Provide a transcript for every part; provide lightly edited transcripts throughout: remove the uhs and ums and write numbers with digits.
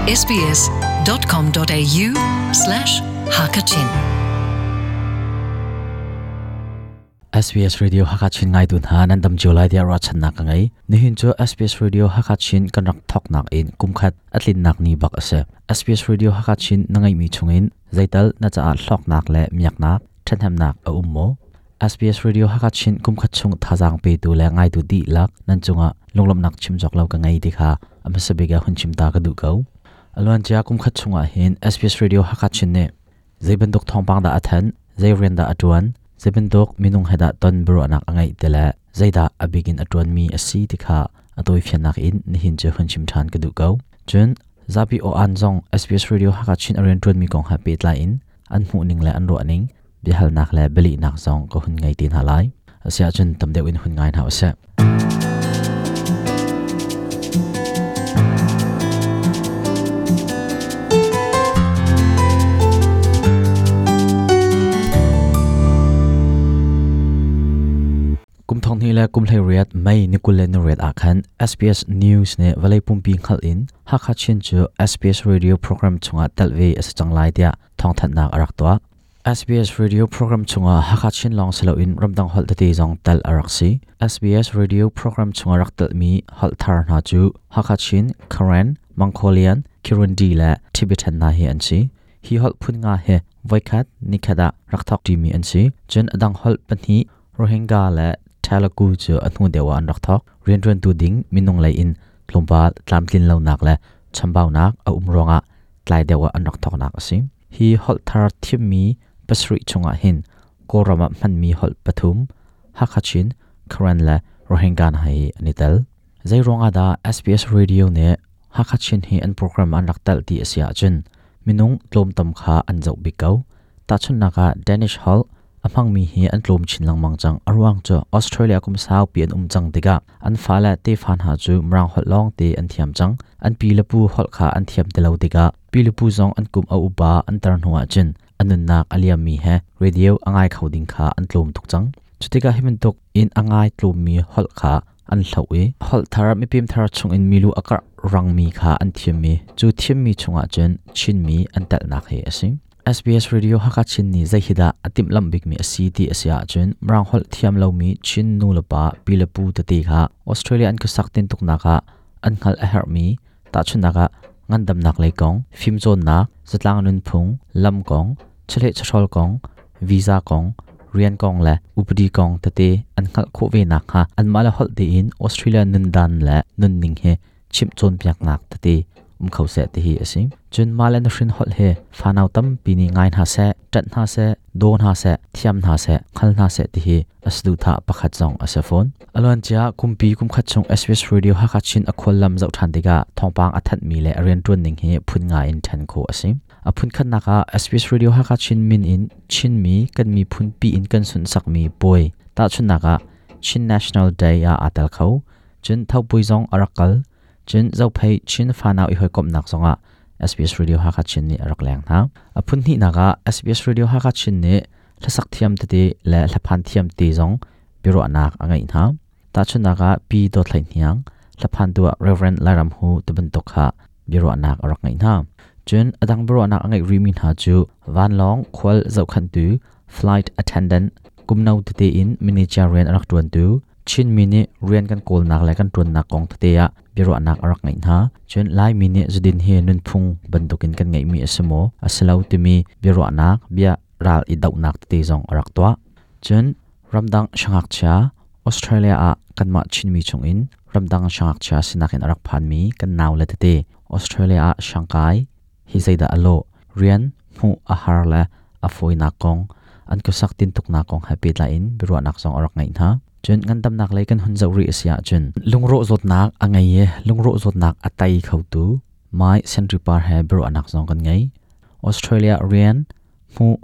sbs.com.au slash hakachin SBS Radio Hakachin ngai tu hna nan dam cio lai tiah ruahchannak ka ngei. Nihin cu SBS Radio Hakachin kan rak thawknak in kumkhat a tlinnak ni bak a si. SBS Radio Hakachin na ngeihmi chungin zeital na caah hlawknak le miaknak, ṭhathnemnak a um maw? SBS Radio Hakachin kumkhat chung thazaang petu le ngaitu dihlak nan cungah lunglawmhnak chim cawk lo ka ngei ti kha a hmasa bik ah hun chim ta ka duh ko. A luancia kumkhat chungah hin SBS Radio Hakachin nih zei bantuk thawngpang dah a thanh, zei rian dah a ṭuan, zei bantuk minung he dah ton biaruahnak a ngeih ti le zeidah a bik in a ṭuanmi a si ti kha a tawifiannak in nihin cu hun chim ṭhan ka duh ko. Cun zapi aw-an zong SBS Radio Hakachin a rianṭuanmi kong he pehtlai in an hmuhning le an ruahning biahalnak le bialehnak zong ka hun ngei te hna lai. Asiahcun tam deuh in hun ngai hna usih. Kum thong hnih le kum 18 May ni 28 ah khan SBS News nih vawlei pumpi hngalh in Hakha Chin cu SBS Radio program chungah telh ve a si cang lai tiah thawngthanhnak a rak tuah. SBS Radio program chungah Hakha Chin lawng si loin ramdang holh tete zong telh a rak si. SBS Radio program chungah rak telhmi holh thar hna cu Hakha Chin, Karen, Mongolian, Kirundi le Tibetan hna hi an si. Hi holh phun nga hi voikhat nikhat ah rak thawk ṭimi an si. Cun a dang holh pahnih Rohingya le Telugu cu a hnu deuh ah an rak thawk. Rianṭuantu ding minung lei in tlawmpal tlamtlin lonak le chambaunak a um ruangah tlai deuh ah an rak thawknak a si. Hi holh thar thimmi pasarih chungah hin Kawlram ah hmanmi holh pathum Hakha Chin, Karen le Rohingya hna hi an i tel. Zei ruangah dah SBS Radio nih Hakha Chin hi an program an rak telh ti a si ahcun minung tlawmtam kha an zoh bik ko. Tahchunhnak ah Danish holh a hmangmi hi an tlawm chin lengmang cang. A ruang cu Australia kum saupi an um cang tikah an fale tefa hna cu Mirang holh lawngte an thiam cang. An pi le pu holh kha an thiam ti lo tikah pi le pu zong an kum a upa an tar hnu ahcun a nunnak a liammi he radio a ngai kho ding kha an tlawm tuk cang. Cutikah hi bantuk in a ngai tlawmmi holh kha an hloh i holh thar mipim thar chungin milu a karh rangmi kha an thiammi cu thiammi chungah cun Chinmi an telhnak hi a si. SBS Radio Hakha Chin nih zei hi dah a timhlamh bikmi a si ti a si ahcun Mirang holh thiam lomi Chin nu le pa pi le pu tete kha Australia an khuasak tintuknak ah an hngalh a herhmi tahchunhnak ah ngandamnak lei kong, fimcawnnak, zatlang nunphung, lam kong, chawleh chawhrawl kong, visa kong, rian kong le upadi kong tete an hngalh khawh ve nakhnga anmah le holh tein Australia nundan le nunning hi chimh cawnpiaknak tete um kho seh ti hi a si. Cun mah le na hrin holh hi fanau tampi nih ngai hna seh, ṭanh hna seh, daw hna seh, thiam hna seh, hngal hna seh ti hi a saduhthah pakhat zong a si fawn. A luancia kumpi kumkhat chung SBS Radio Hakha Chin a khuallam zoh ṭhan tikah thawngpang a thanhmi le a rianṭuan ning hi phun nga in ṭhen khawh a si. A phunkhatnak ah SBS Radio Hakha Chin min in Chinmi kan miphun pi in kan sunhsakmi puai tahchunhnak ah Chin National Day ah aa tel kho. Cun Thopui zong a rak kal. Cun Zophei Chin fanau i hawikomhnak zongah SBS Radio Hakha Chin nih a rak leng hna. A phun hnihnak ah SBS Radio Hakha Chin nih hlasak thiam tete le hlaphan thiam te zong biaruahnak a ngeih hna. Tahchunhnak ah Pi Dawt Hlei Hniang, hlaphantu ah Reverend Lairam Hu tibantuk kha biaruahnak a rak ngeih hna. Cun a dang biaruahnak a ngeih rihmi hna cu vanlawng khual zohkhanhtu flight attendant, kumno tete in manager rian a rak ṭuantu, Chinmi nih rian kan kawlnak le kan ṭuannak kong tete ah biaruahnak a rak ngeih hna. Cun Laimi nih zudin hi nunphung bantukin kan ngeihmi a si maw, a si lo timi biaruahnak, bia ral i dohnak tete zong a rak tuah. Cun ramdang siangngakchia Australia ah kanmah Chinmi chungin ramdang siangngakchia sinak in a rak phanmi kan naule tete Australia ah siangkai hi zeidah a lawh? Rian hmuh a har le a fawinak kong, an khuasak tintuknak kong he pehtlai in biaruahnak zong a rak ngeih hna. Cun ngandamnak lei kan hun zoh rih a si ahcun lungrawh zawtnak a ngei i lungrawh zawtnak a tei khotu Mai Senri Par he biaruahnak zong kan ngei. Australia rian hmuh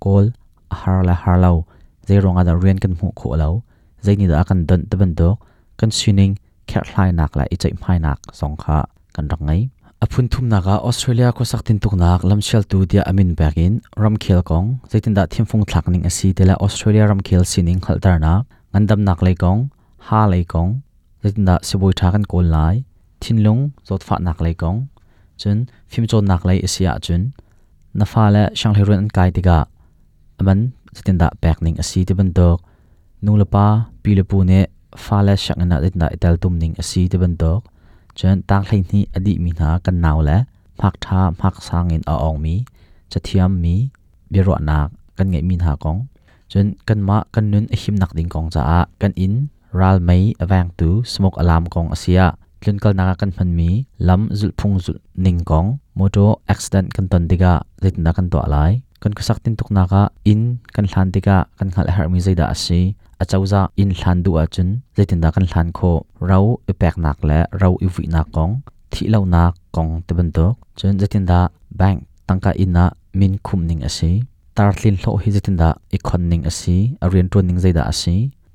kawl a har le har lo, zei ruangah dah rian kan hmuh khawh lo, zei nih dah a kan donh ti bantuk kan sining kherhhlainak le i ceihmainak zong kha kan rak ngei. A phun thumnak ah Australia khuasak tintuknak lamsialtu tiah a min pek in ramkhel kong zeitindah thimfung thlak ning a si ti le Australia ramkhel sining hngalhternak, ngandamnak lei kong, ha lei kong, zeitindah sibawi ṭha kan kawl lai, thinlung zawtfahnak lei kong, Cun fimcawnnak lei a si ahcun na fale sianghleiruun an kai tikah a man zeitindah pek ning a si ti bantuk, nu le pa, pi le pu nih fale sianginn ah zeitindah i teltum ning a si ti bantuk, cun tang 12 a dihmi hna kan nau le hmak ṭha hmak sang in a awngmi, cathiam mi biaruahnak kan ngeihmi hna kong, cun kanmah kan nun a himnak ding kong caah kan inn ral mei a vengtu smoke alarm kong a si ah, tlunkalnak ah kan hmanmi lam zulhphung zulh ning kong, motor accident kan ton tikah zeitindah kan tuah lai, kan khuasak tintuknak ah inn kan hlan tikah kan hngalh a herhmi zeidah a si, acozah inn hlan duh ahcun zeitindah kan hlan khawh, ro i peknak le ro i vuihnak kong, thihlonak kong tibantuk, cun zeitindah bank tangka inn ah min khumh ning a si, tartlin hlawh hi zeitindah i khon ning a si, a rianṭuan ning zeidah a si,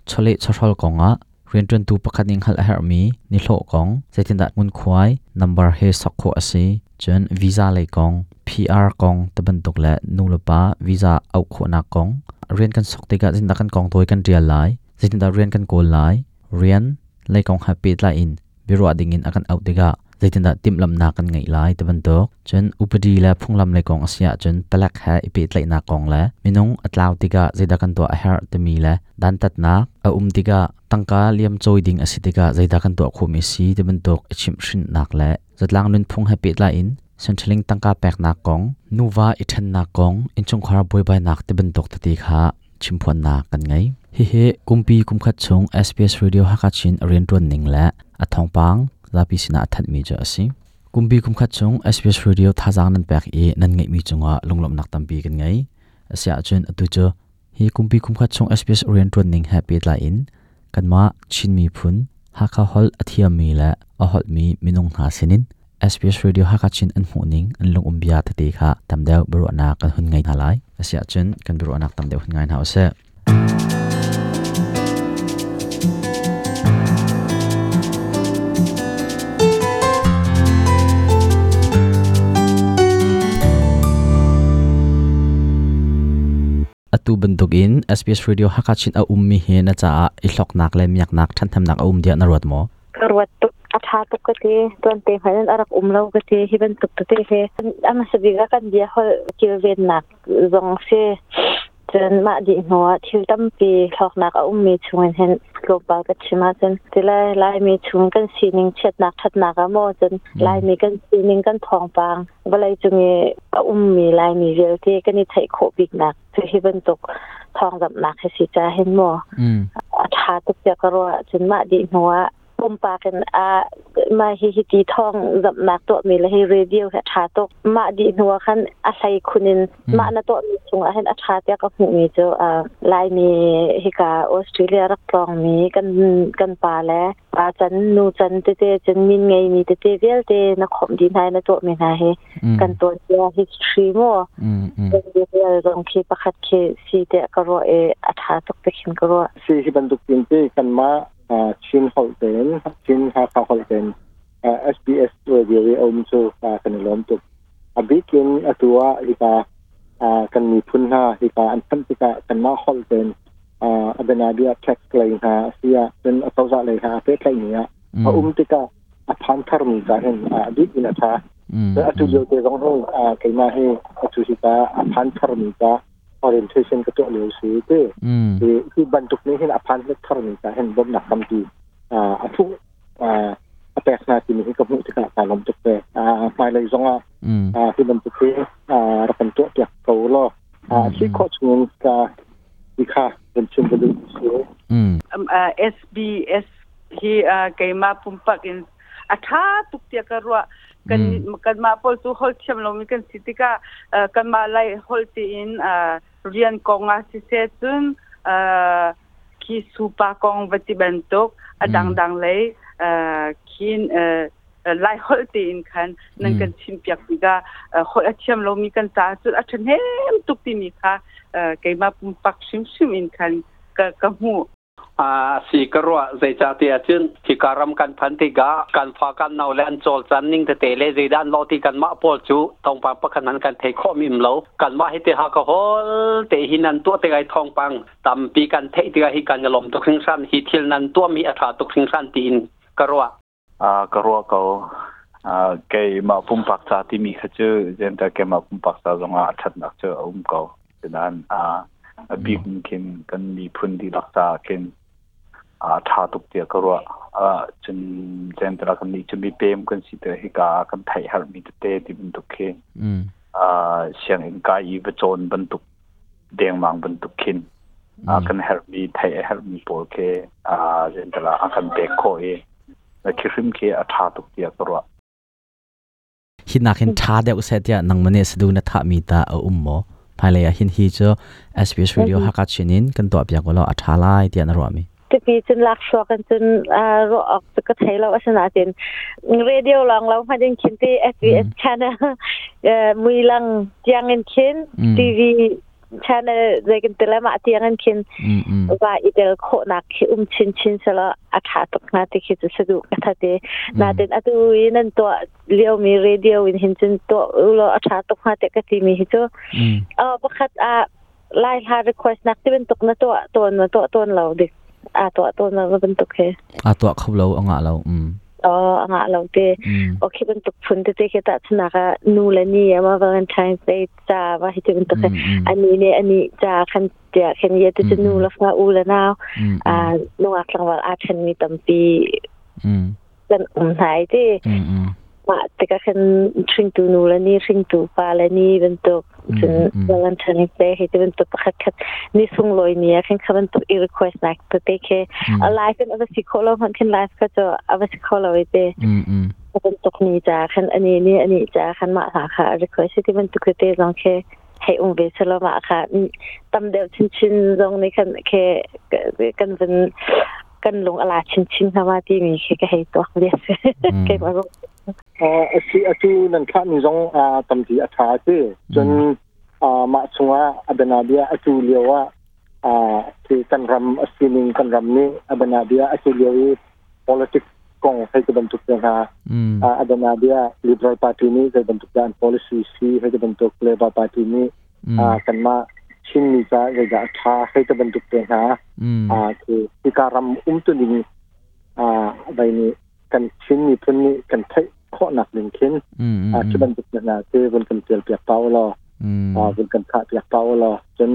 chawleh chawhrawl kongah rianṭuantu pakhat nih hngalh a herhmi nihlawh kong, zeitindah ngunkhuai number he sok khawh a si, cun visa lei kong, PR kong tibantuk le nu le pa visa auh khawhnak kong, rian kan sok tikah zeitindah kan kong tawi kan ṭial lai, zeitindah rian kan kawl lai, rian lei kong he pehtlai in biaruah dingin a kan auh tikah zeitindah timhlamhnak kan ngeih lai ti bantuk. Cun upadi le phunglam lei kong a si ahcun palek he i pehtlaihnak kong le minung a tlau tikah zeidah kan tuah a herh timi le dantatnak a um tikah tangka liam cawi ding a si tikah zeidah kan tuah khawhmi si ti bantuk i chimhhrinhnak le zatlang nunphung he pehtlai in Centrelink tangka peknak kong, nuva i ṭhennak kong, innchungkhar buaibainak ti bantuk tete kha chimphuannak kan ngei. Hihi kumpi kumkhat chung SBS Radio Hakha Chin a rianṭuan ning le a thawngpang zapi sinah a thanhmi cu a si. Kumpi kumkhat chung SBS Radio thazaang nan pek i nan ngeihmi cungah lunglawmhnak tampi kan ngei. Asiahcun atu cu hi kumpi kumkhat chung SBS rianṭuan ning he pehtlai in kanmah Chin miphun Hakha holh a thiammi le a holhmi minung hna sinin SBS Radio Hakha Chin an hmuhning an lungum bia tete kha tam deuh biaruahnak kan hun ngei hna lai. Asiahcun kan biaruahnak tam deuh hun ngai hna usih. Atu bantukin SBS Radio Hakha Chin a ummi hi na caah i hloknak le miaknak ṭhanhnemnak a um tiah na ruat maw? Ka ruat tuk. A ṭha tuk ka ti. Tuante hmanh in a rak um lo ka ti. Hi bantuk tete hi a hmasa bik ah kan bia holh kilvennak zong si. Cun mah dih hnu ah thil tampi hlawknak a ummi chungin hin tlawmpal ka chim ahcun tilai Laimi chung kan sining chiatnak ṭhatnak ah maw cun Laimi kan sining kan thawngpang vawlei cung i a ummi Laimi vialte kan i theih khawh biknak cu hi bantuk thawngzamhnak hi si ca hin maw a ṭha tuk tiah ka ruah. Cun mah dih hnu ah pumpak in a mah hi hi ti thawng zamhnak tuahmi le hi radio hi a ṭha tuk. Mah dih hnu ah khan a hlei khun in mah na tuahmi chungah hin a ṭha tiah ka hmuhmi cu Laimi hika Australia rak tlawngmi kan pa le pa can nu can tete cun min ngeimi tete vialte na khawmh dih hna i na tuahmi hna hi kan tuanbia history maw real zong khi pakhat khi si tiah ka ruah i a ṭha tuk te khin ka ruah. Si hi bantuk tin te kanmah Chin holh tein Chin Hakha holh tein SBS radio i a um cu kan i lawm tuk. A bik in atu ah hika kan miphun hna hika an phanh tikah kanmah holh tein a bianabia tax lei hna a si ah cun a cozah lei hna a pehtlaihmi ah a um tikah a phan tharmi ca hin a bik in a ṭha. Atu lio te zong hi keimah hi atu hika a phan tharmi ca orientation ka tuah lio si ti. Hi bantuk nih hin a phan tharmi ca hin bawmhnak tampi a thuh a pek hna timi hi ka hmuh tikah kaa lawm tuk ve. Hmailei zongah hi bantuk hi rak kan tuah piak ko law si khawh chungin ka ti kha kan chim ka duh si. SBS hi keimah pumpak in a ṭha tuk tiah ka ruah. Kan kanmah pawl cu holh thiam lomi kan si tikah kanmah lai holh tiin rian kong ah siseh cun khi supa kong va ti bantuk a dangdang lei khin lai holh tein khan nan kan chimpiak tikah holh a thiam lomi kan caah cun a ṭhahnem tuk timi kha keimah pumpak hrimhrim in khan ka hmuh. Si ka ruah. Zeicahtiah cun hika ram kan phan tikah kan fa kan nau le an cawlcan ning tete le zeidah an lawh ti kanmah pawl cu thawngpang pakhat hmanh kan thei khawh mi um lo. Kanmah hi te ha ka hol te hi nan tuah tikah thawngpang tampi kan theih tikah hi kan i lawm tuk hringhran, hi thil nan tuahmi a ṭha tuk hringhran tiin ka ruah. Ka ruah ko. Keimah pumpak ca timi kha cu zencah keimah pumpak ca zongah a ṭhatnak cu a um ko. Sinain a bik in khin kan miphun dihlak caah khin a ṭha tuk tiah ka ruah. Cun zencah kannih cu mipem kan si tikah hika ah kan theih herhmi tete ti bantuk khi sianginn kai i va cawn bantuk dengmang bantuk khin kan herhmi theih a herhmi pawl khi zencah a kan pek khawh i khi hrim khi a ṭha tuk tiah ka ruah. Hi nakin ṭha deuh seh tiah nangmah nih sadu na thahmi ta a um maw? Hmailei ah hin hi cu SBS Radio Hakha Chin in kan tuah piak ulaw a ṭha lai tiah na ruahmi. Tipi cun laksuak in cun ruah awk cu ka thei lo asinain radio lawng lo hmanh in khin ti SBS channel muilang tiang in khin TV channel zei kan ti le mah tiang in khin va i tel khawhnak khi um chin chin sela a tha tuk hnga ti khi cu sadu ka thate natin atu i nan tuah liomi radio in hin cun tuah ulaw a tha tuk hnga te ka ti mi hi cu pakhat a lai hla request nak ti bantuk na tuah tawn na tuah tawn lo dik a tuah tawn lo bantuk he a tuah kho lo a ngah lo a ngah lo te okay bantuk phun te te khi ta chunak ah nu le ni ama Valentine's Day ca va hi ti bantuk ani ne ani ca khan tia khan ye te nu la fa u le nau a nungak tlangval a then mi tampi kan um hnai ti mah tikah khan hringtu nu le ni hringtu pa le ni bantuk cun Valentine's Day hi ti bantuk pakhat khat ni sunglawi ni ah khan kha bantuk i request nak tete khi a live in a va si khawh lo hmanh khin live kha cu a va si kho lo i te bantuk ni ca khan ani ni ani ca khan mah hla kha a request ti bantuk tete zong khi hei um ve selo mah kha tam deuh chinchin zong nih khan khe kan vun kan lung ala chinchin hna ma timi khi ka hei tuak ve keimah zong asi atu nan thlah mi zong tampi a tha ti cun mah chungah adanabia atu lio ah khi kan ram a sining kan ram nih adanabia atu lio i politics kong hei ti bantuk te hna adanabia Liberal Party nih zei bantuk dah an policy si hei ti bantuk Labor Party nih kanmah Chinmi ca zeidah a ṭha hei ti bantuk te hna khi hika ram umtuning vai nih kan Chin miphun nih kan theih khawhnak ding khin khi bantuk te hna te vun kan tial piak pa ulaw vun kan thah piak pa ulaw cun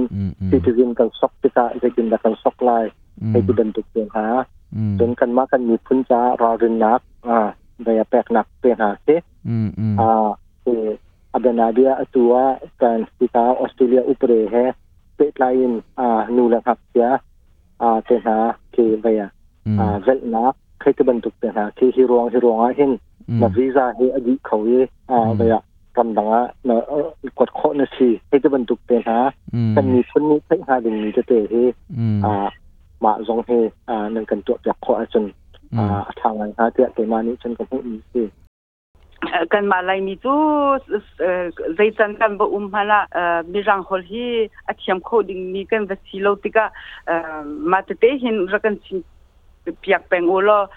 citizen kan sok tikah zeitindah kan sok lai hei ti bantuk te hna cun kanmah kan miphun caah ralrinnak vai a peknak te hna khi Abianabia atu ah kan hika Australia upade he pehtlai in nu le ngakchia te hna khi vei velhnak khi ti bantuk te hna khi hi ruang hi ruang ah hin na visa hi a dih kho i vei ah ramdang ah na kuat khawh na si hei ti bantuk te hna kan miphun nih theih hnga dingmi tete hi mah zong hi nan kan tuah piak khawh ahcun a ṭha ngai hnga tiah keimah nih cun ka hmuhmi si. Kanmah Laimi cu zeican kan va um hmanh ah Mirang holh hi a thiam kho dingmi kan va si lo tikah mah tete hin rak kan chim piak peng u law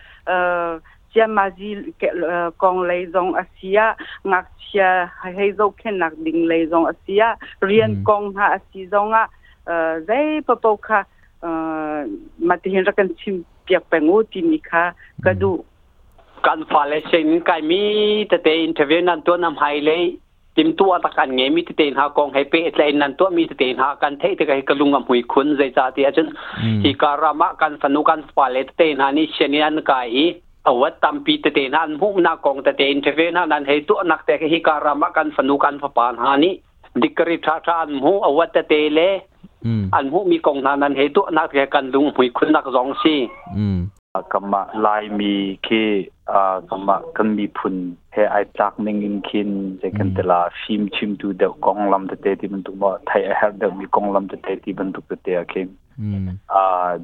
ciamazi kong lei zong a si ah ngakchia hei zohkhenhnak ding lei zong a si ah rian kong hna a si zong ah zei paoh kha mah tihin rak kan chim piak peng u timi kha ka duh. Kan fale sianginn kaimi tete interview nan tuah na hmailei timtuah tak an ngeimi tete hna kong he pehtlaih nan tuahmi tete hna kan theih tikah hi ka lung a hmui khun zeicah ti ahcun hi ka ram ah kan fanu kan fale tete hna nih sianginn an kai i awat tampi tete hna an hmuhnak kong tete interview hna nan hei tuahnak te hi ka ram ah kan fanu kan fapa hna nih dikari ṭha ṭha an hmuh awat tete le an hmuhmi kong hna nan hei tuahnak te kan lung hmui khunnak zong si. Kanmah Laimi khi kanmah kan miphun he ai tlak ning in khin zei kan ti la fim chimtu deuh konglam tete ti bantuk maw theih a herh deuhmi konglam tete ti bantuk tete ah khin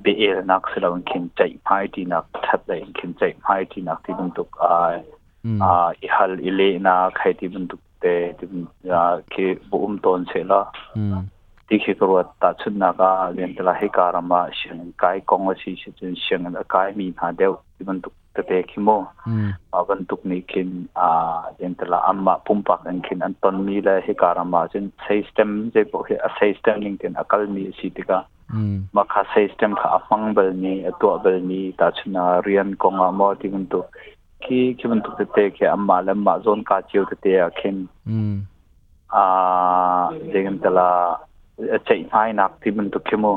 bia-elnak si loin khin ceihmai ṭinak ṭhat lei in khin ceihmai ṭinak ti bantuk i hal i lehnak hei ti bantuk te khi va um tawn seh law ti khi ka ruat tahchunhnak ah riantala hika ram ah sianginn kai kong a si si cun sianginn a kai mi hna deuh ti bantuk tete khi mu mah bantuk nih khin riantala anmah pumpak in khin an ton mi le hika ram ah cun system zei paoh hi a system ning tein a kal mi a si tikah mah kha system kha a hmang bal mi a tuah bal mi tahchun ah rian kong ah maw ti bantuk Khi khi bantuk tete khi anmah le anmah zawnka cio tete ah khin zei kan ti la ceihmainak ti bantuk khi mu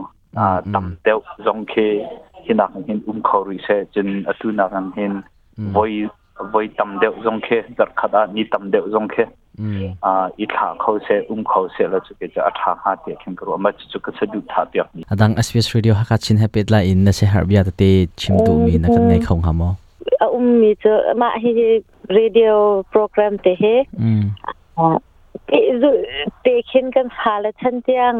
tam deuh zong khi hi nak hin um kho rih seh. Cun atu nak in hin voi voi tam deuh zong khi, zarhkhat ah ni tam deuh zong khi i thlah kho seh, um kho seh la cu ke cu a ṭha hnga tiah khin ka ruah. Mah cucu ka saduhthah piak mi. Adang SBS Radio Hakha Chin he pehtlai in na siaherh bia tete chim duhmi na kan ngei kho hnga maw? A ummi cu mah hi radio program te hi te khin kan fale chan tiang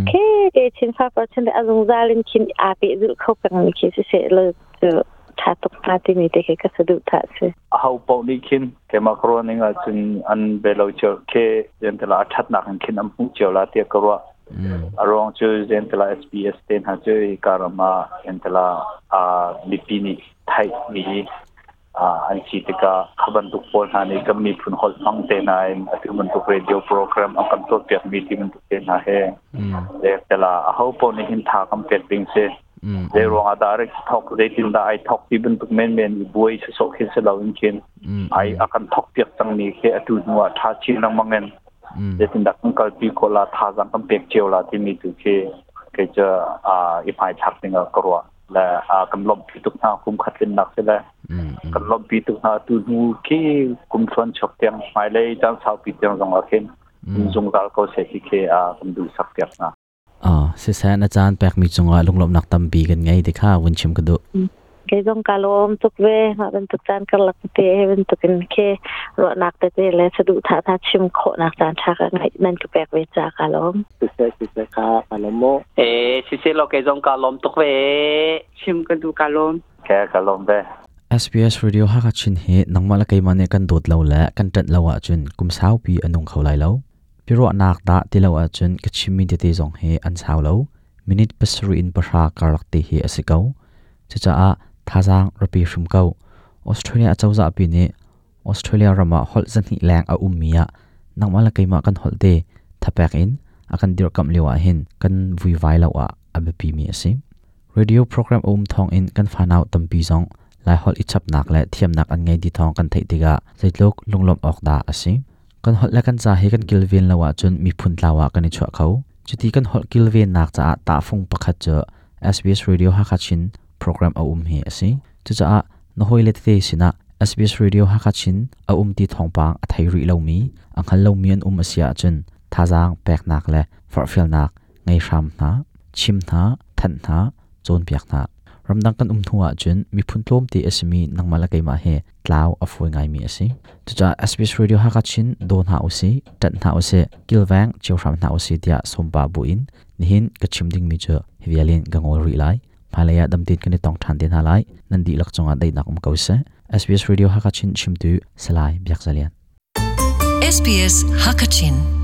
khi te chin fa par chan a zungzal in khin aa pehzulh kho pengmi khi si seh law cu ṭha tuk hnga timi te khi ka saduhthah si. Aho paoh nih khin keimah ka ruah ning ahcun an be lo cio khi zentila a ṭhatnak in khin an hmuh cio la tiah ka ruah. A ruang cu zentila SBS te hna cu hika ram ah zentila mipi nih theih mi an si tikah kha bantuk pawl hna nih kan miphun holh hmang te hna in atu bantuk radio program an kan tuahpiak mi ti bantuk te hna he zentila aho paoh nih hin tha kan pek ding si. Zei ruang ah dah rik thok, zeitin dah ai thok ti bantuk menmen i buai sawsawh khi si lo in khin ai a kan thok piak cang mi khi atu hnu ah ṭha chin lengmang in zeitin dah kan kalpi khawh la, thazaang kan pek cio la timi tu khi kei cu i hmaithlak ding ah ka ruah le kan lawmhpi tuk hna. Kum khat tlinnak si le kan lawmhpi tuk hna. Atu hnu khi kum thluan chuak tiang, hmailei caan saupi tiang zong ah khin zungzal ko seh ti khi kan duh sak piak hna. Siseh, na caan pekmi cungah lunglawmhnak tampi kan ngei ti kha vun chim ka duh. Kei zong ka lawm tuk ve. Mah bantuk caan karlak te he bantuk in khi ruahnak tete le saduhthah hna chim khawhnak caan ṭha ka ngeih nan ka pek ve ca ka lawm. Siseh, siseh, ka ka lawm mu. Eh, siseh law kei zong ka lawm tuk ve. Chim ka duh, ka lawm. Ke ka lawm ve. SBS Radio Hakha Chin hi nangmah le keimah nih kan dawt lo le kan ṭanh lo ahcun kum saupi a nung kho lai lo. Biaruahnak dah ti lo ahcun ka chimmi tete zong hi an sau lo. Minute 7 in 10 karlak te hi a si ko. Cucaah thazaang rapi hrim ko. Australia acozah pi nih Australia ram ah holh 200 leng a ummi ah nangmah le keimah kan holh te thapek in a kan dirhkamh lio ah hin kan vuivai lo ah a biapi mi a si. Radio program a um thawng in kan fanau tampi zong Laiholh i chapnak le thiamnak an ngei ti thawng kan theih tikah zeitluk lunglawmh awk dah a si. Kan holh le kan ca hi kan kilven lo ahcun miphun tlau ah kan i chuah kho. Cuti kan holh kilvennak caah tahfung pakhat cu SBS Radio Hakha Chin program a um hi a si. Cucaah na hawile tete sinah SBS Radio Hakha Chin a um ti thawngpang a thei rih lomi, a hngal lomi an um a si ahcun thazaang peknak le forhfialnak ngei hram hna, chim hna, thanh hna, cawnpiak hna. Ramdang kan um hnu ahcun miphun tlawmte a simi nangmah le keimah hi tlau a fawi ngaimi a si. Cucaah SBS Radio Hakha Chin daw hna usih, ṭanh hna usih, kilveng cio hram hna usih tiah sawmpa buin nihin ka chim dingmi cu hi vial in ka ngawl rih lai. Hmailei ah damtein kan i tong ṭhan te hna lai. Nan dihlak cungah daihnak um ko seh. SBS Radio Hakha Chin chimtu Salai Biak Za Lian. SBS Hakachin.